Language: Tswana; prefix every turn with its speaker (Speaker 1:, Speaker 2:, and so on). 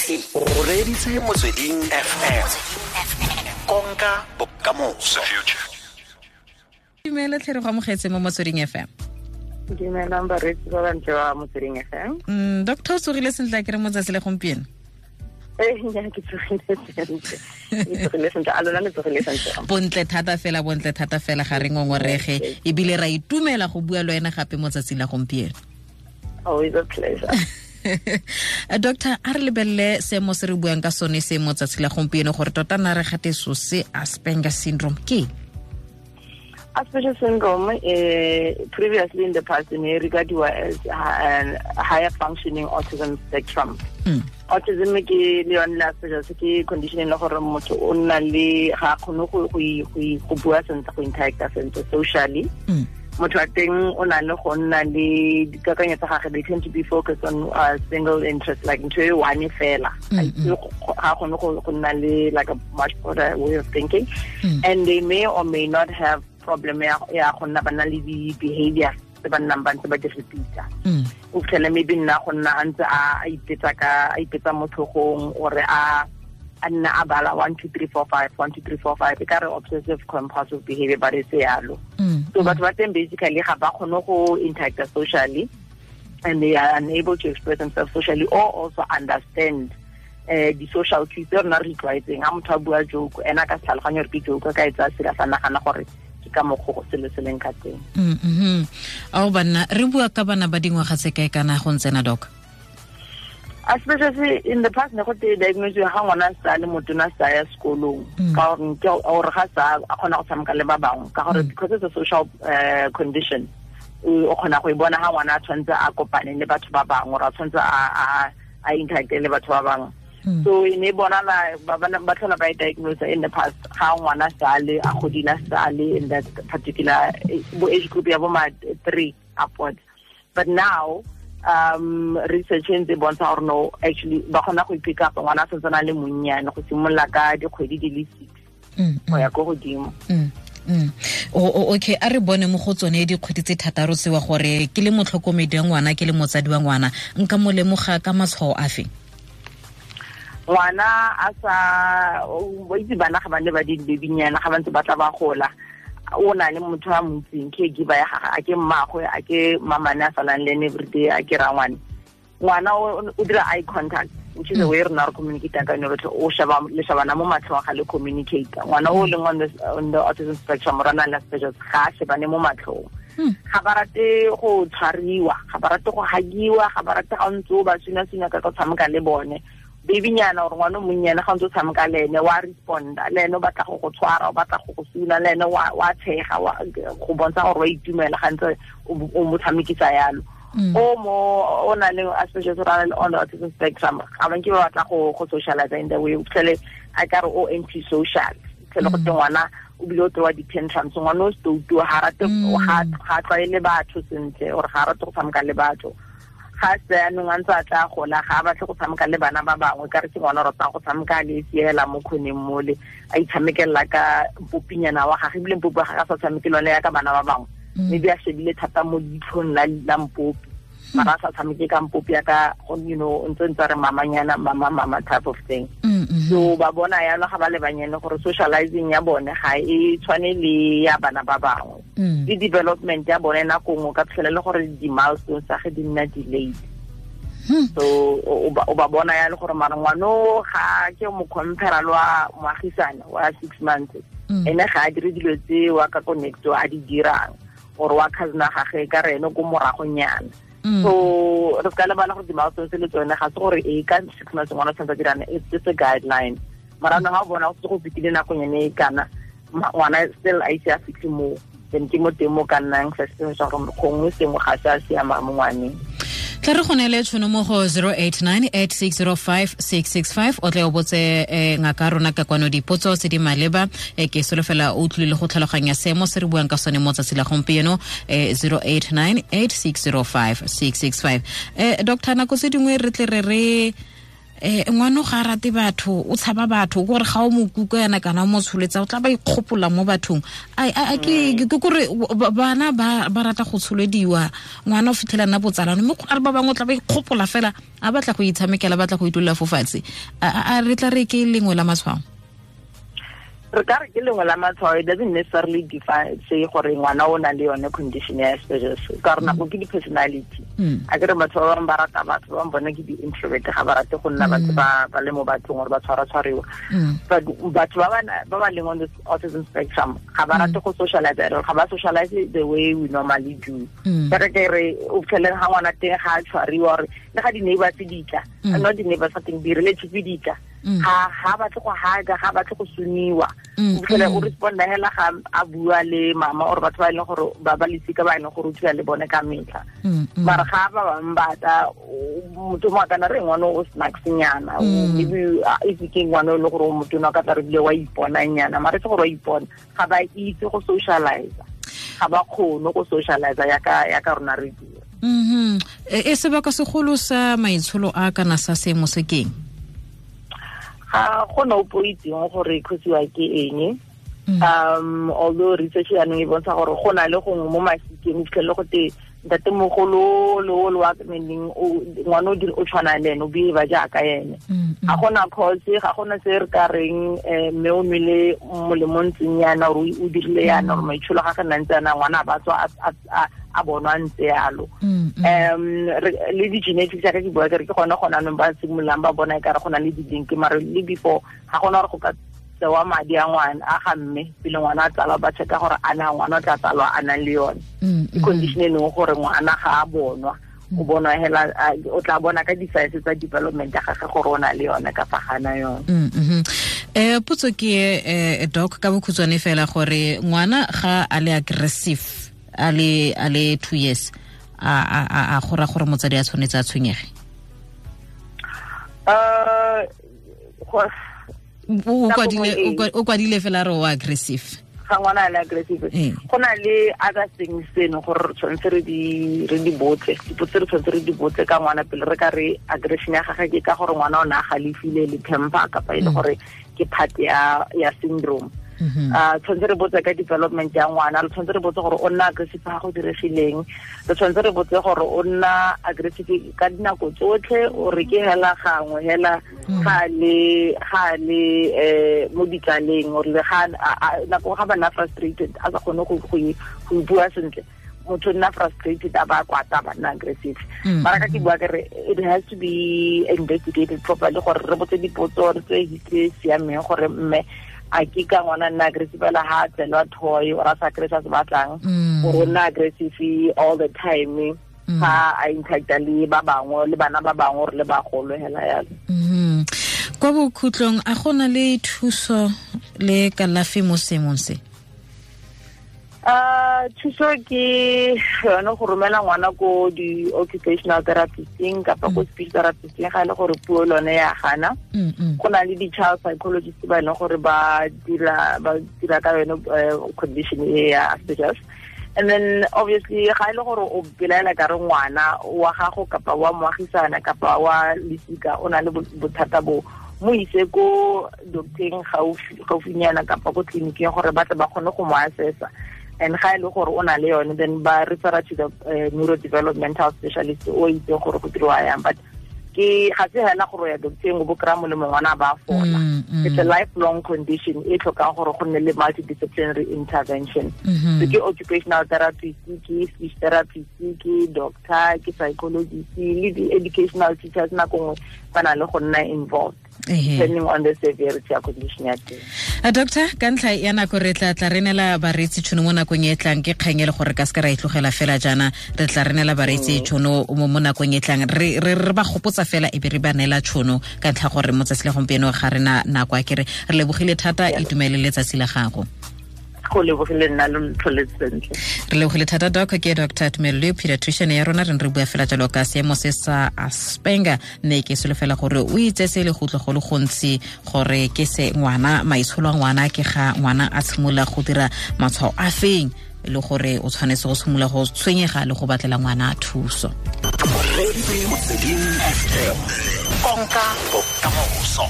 Speaker 1: O reditse Motsweding FM, konka bokamoso.
Speaker 2: Dumela tlhere, go amogetse mo Motsweding FM.
Speaker 3: Dumelang bareetsi ba bantle ba Motsweding FM.
Speaker 2: Doctor, o tsogile sentle a kere mo tsatsi le gompieno?
Speaker 3: Ee, nya, ke tsogile sentle, ke tsogile sentle. A lona le tsogile sentle?
Speaker 2: Bontle thata fela, bontle thata fela, ga re ngongorege, ebile ra itumela go bua le wena gape mo tsatsing la gompieno.
Speaker 3: Always a pleasure.
Speaker 2: Doctor, a re lebelele seemo se re buang ka sone se mo tsatsi la gompieno, gore tota na re gate so se Asperger syndrome ke?
Speaker 3: Asperger syndrome, previously in the past, ne regarded as a higher functioning autism spectrum. Autism ke le yone le Asperger's ke condition e le gore motho o nna le ga a kgone go bua sentle, go interacta sentle socially. Motho wa teng o na le go nna le dikakanyo tsa gage, they tend to be focused on a single interest, like ntho e one fela. Ga kgone go nna le like a much broader way of thinking. And they may or may not have problem ya go nna ba na le di-behavior tse ba nnang ba ntse ba di repeata. O fitlhele maybe nna go nna a ntse a ipetsa ka a ipetsa mo tlhogong, ore a nna a bala 1 2 3 4 5, 1 2 3 4 5, e ka re obsessive compulsive behavior, but e se yalo. So batho ba teng basically ga ba kgone go interacta socially, and they are unable to express themselves socially or also understand di-social cues tse rona re itlwaetseng. Ga motho a bua joke, ena ka se tlhaloganye gore ke joke, ka e tsaya serious, a nagana gore ke ka mokgwa go selo se leng ka teng.
Speaker 2: Ao banna, re bua ka bana ba dingwaga tse kae kana go ntsena, doc?
Speaker 3: Especially in the past ne go te diagnose ga ngwana sa le motona, sa ya sekolong, ka gore ke gore ga sa a kgona go tshameka le ba bangwe, ka gore because it's a social condition, o kgona go e bona ga ngwana a tshwanetse a kopane le batho ba bangwe, or a tshwanetse a interacte le batho ba bangwe. So e ne bonala ba tlhola ba e diagnose in the past ga ngwana sa le a godile, sa le in that particular bo age group ya bo ma 3 upwards. But now research e ntse e bontsha gore no, actually ba kgona go pick up ngwana a santse a le monnyane, go simolola ka dikgwedi di le 6 go ya ko godimo.
Speaker 2: Okay, a re bone mo go tsone dikgwedi tse 6 tsewa, gore ke le motlhokomedi wa ngwana, ke le motsadi wa ngwana, nka mo lemoga ka matshwao afe?
Speaker 3: Ngwana a sa o itse, bana ga ba ne ba di babynyana, ga ba ntse ba tla ba gola, o na le motho a moitseng, caregiver ya gage, a ke mmagwe, a ke mamane a salang le ene everyday, a ke rangwane. Ngwana o dira eye contact, which is the way rena re communicate ka yone rotlhe. O sheba, le shebana mo matlhong ga le communicate. Ngwana o leng on the autism spectrum or na le Asperger's ga a shebane mo matlhong. Ga ba rate go tshwariwa, ga ba rate go hagiwa, ga ba rate ga o ntse o ba suna-suna ka go tshameka le bone. Babynyana gore ngwana o monnyane, ga o ntse o tshameka le ene, wa responda le ene, o batla go go tshwara, o batla go go suna le ene, wa tshega, go bontsha gore wa itumela ga ntse o mo tshamekisa yalo. O mo o na le Asperger's or le on the autism spectrum, ga ba nke ba batla go socialize in the way. O fitlhele a ka re o anti social, fitlhele go te ngwana o bile o tsewa di-tantrums, ngwana o stoutu, ga rate, ga tlwaele batho sentle, or ga rate go tshameka le batho. Ga se anong a ntse a tla gola, ga a batle go tshameka le bana ba bangwe, ka re ke ngwana o ratang go tshameka le siela mo kgoneng mole, a itshamekelela ka mpopinyana wa gage, ebile mpopi wa gage a sa tshameke le yone ya ka bana ba bangwe. Maybe a shebile thata mo leitlhong la mpopi, mara a sa tshameke ka mpopi ya ka ntse re mamanyana, mama mama type of thing. So ba bona yalo ga ba le banyane gore socializing ya bone ga e tshwane le ya bana ba bangwe. Le development ya bone, nako nngwe ka fitlhela le gore di-milestones tsa ge di nna delayed. So o ba bona ya le gore mara ngwano ga ke mo compare le wa moagisane wa 6 months, ene ga a dire dilo tse wa ka ko next a di dirang, or wa cousin gage ka re ene ko moragonyana. So re ka lebala gore di-milestones le tsone ga se gore e ka 6 months ngwana o tshwanetse a dirane, it's just a guideline. Mara no ga o bona go setse go fetile nakonyane e kana, ngwana still a ise a fitlhe moo, then ke mo teng mo ka nnang suspicious gore gongwe sengwe ga se a siama mo ngwaneng.
Speaker 2: Tla re go neele tšhono mo go 089 8605 665, o tle o botse ngaka rona ka kwano dipotso tse di maleba. Ke solofela o utlwile go tlhaloganya seemo se re buang ka sone mo tsatsi la gompieno. 089 8605 665. Doctor, nako tse dingwe re tle re re Ngwana ga rate batho, o tshaba batho, gore ga o mo kuka yana kana o mo tsholetsa, o tla ba ikgopola mo bathong. A ke gore bana ba rata go tsholediwa, ngwana o fitlhela nna botsalano, mme go na le ba bangwe o tla ba ikgopola fela, a batla go itshamekela, batla go itulela fo fatshe. A re tla re ke lengwe la matshwao?
Speaker 3: Re ka re ke lengwe la matshwao. It doesn't necessarily define say gore ngwana o na le yone condition ya Asperger's, ka gore nako ke di-personality. A ke re batho ba bangwe ba rata batho, ba bangwe bone ke di-introvert, ga ba rate go nna batho ba le mo bathong gore ba tshwara-tshwariwa. But batho ba ba leng on the autism spectrum ga ba rate go socialize at all, ga ba socialize the way we normally do. Ka ke re o fitlheleng ga ngwana teng ga a tshwariwa, gore le ga di-neighbors di tla, not di-neighbors ga teng, di-relative di tla, ga batle go haga, ga batle go suniwa. O fitlhele o responda hela ga a bua le mama or batho ba e leng gore ba ba lesika ba e leng gore o dula le bone ka metlha. Mara ga ba bangwe ba tla, motho mo a kana re ngwana o snacks-nyana, maybe if ke ngwana o le gore o motona ka tla re bile wa iponanyana, mara se gore wa ipona, ga ba itse go socialize, ga ba kgone go socialize ya ka rona re dira.
Speaker 2: E sebaka segolo sa maitsholo a kana sa seemo se keng?
Speaker 3: Ga gona opo itseng gore khosiwa ke eng. Although research yaanong e bontsha gore go na le gongwe mo masikeng o fitlhelele go te ntatemogolo le o le wa meneng ngwana o o tshwana le ene, o behave jaaka ene. Ga gona cause, ga gona se re ka reng mme o nwele molemo ntseng yana or o dirile yana or maitsholo ga ga ntse yana, ngwana a ba tswa a bonwa ntse yalo. Le di-genetics ya ka ke bua ke re ke gone gona anong ba simololang ba bona e kare go na le di-link, mare le before ga gona gore go ka tsewa madi a ngwana a ga mme pele ngwana a tsalwa, ba checka gore a na ngwana o tla tsalwa a nang le yone. Ke condition e leng gore ngwana ga a bonwa, o bonwa hela, o tla bona ka di-science tsa development ya gagwe gore o na le yone kapa ga na yone.
Speaker 2: Potso ke doc ka bokhutshwane fela, gore ngwana ga a le aggressive a le 2 years, a gora gore motsadi a tshwanetse a tshwenyege? O kwadile fela re o aggressive.
Speaker 3: Ga ngwana a le aggressive, go na le other things tseno gore re tshwanetse re di botse, dipotso re tshwanetse re di botse ka ngwana pele re ka re aggression ya gagwe ke ka gore ngwana o ne a galefile le temper kapa e le gore ke part ya syndrome. Tshwanetse re botse ka development ya ngwana, re tshwanetse re botse gore o nna aggressive ga go diregileng, re tshwanetse re botse gore o nna aggressive ka dinako tsotlhe o re ke hela gangwe hela ga le mo ditlaleng, or le ga nako ga ba nna frustrated a sa kgone go bua sentle, motho nna frustrated a ba kwata ba nna aggressive. Mara ka ke bua ke re it has to be investigated properly gore re botse dipotso re tse history e siameng gore mme a ke ka ngwana nna aggressive fela ha tselwa toy or a sa kry se batlang, or o nna aggressive all the time ga a interacta le ba bangwe le bana ba bangwe or le bagolo hela yalo.
Speaker 2: Kwa bokhutlong, a gona le thuso le kalafi mo seemong se?
Speaker 3: Thuso ke yone go romela ngwana ko di-occupational therapisteng kapa ko speech therapisteng ga e le gore puo lone ya gana. Go na le di-child psychologist ba e leng gore ba dira ka yone condition e ya Asperger's. And then obviously ga e le gore o belaela ka re ngwana wa gago kapa wa moagisana kapa wa lesika o na le bothata bo, mo ise ko docteng gaufinyana kapa ko tleliniking gore ba tle ba kgone go mo assessa. And ga e le gore o na le yone, then ba refera to the neurodevelopmental specialist o itseng gore go diriwa yang. But ke ga se hela gore ya docteng o bo kry-a molemo ngwana ba fola. It's a lifelong condition e tlhokang gore go nne le multidisciplinary intervention. So ke occupational therapist, ke speech therapist, ke doctor, ke psychologist le di-educational teachers nako nngwe ba na le go nna involved, depending on the severity ya condition ya teng.
Speaker 2: Doctor, ka ntlha ya nako re tla re neela bareetsi tšhono mo nakong e tlang, ke kgang e le gore ka se ka ra e tlogela fela jaana, re tla re neela bareetsi tšhono mo nakong e tlang, re ba gopotsa fela e be re ba neela tšhono ka ntlha gore mo tsatsi la gompieno ga re na nako. A kere re lebogile thata, itumele letsatsi la gago.
Speaker 3: Go lebogile nna lo ntlhole sentle.
Speaker 2: Re lebogile thata doc. Ke Dr. Tumelo Leo, pediatrician ya rona, re bua fela jalo ka seemo se sa Asperger, mme ke solofela gore o itse se le go utlwa go le gontsi gore ke se ngwana maitsholo a ngwana ke ga ngwana a tshimolola go dira matshwao a feng, le gore o tshwanetse go simolola go tshwenyega le go batlela ngwana thuso.
Speaker 1: Konka bokamoso.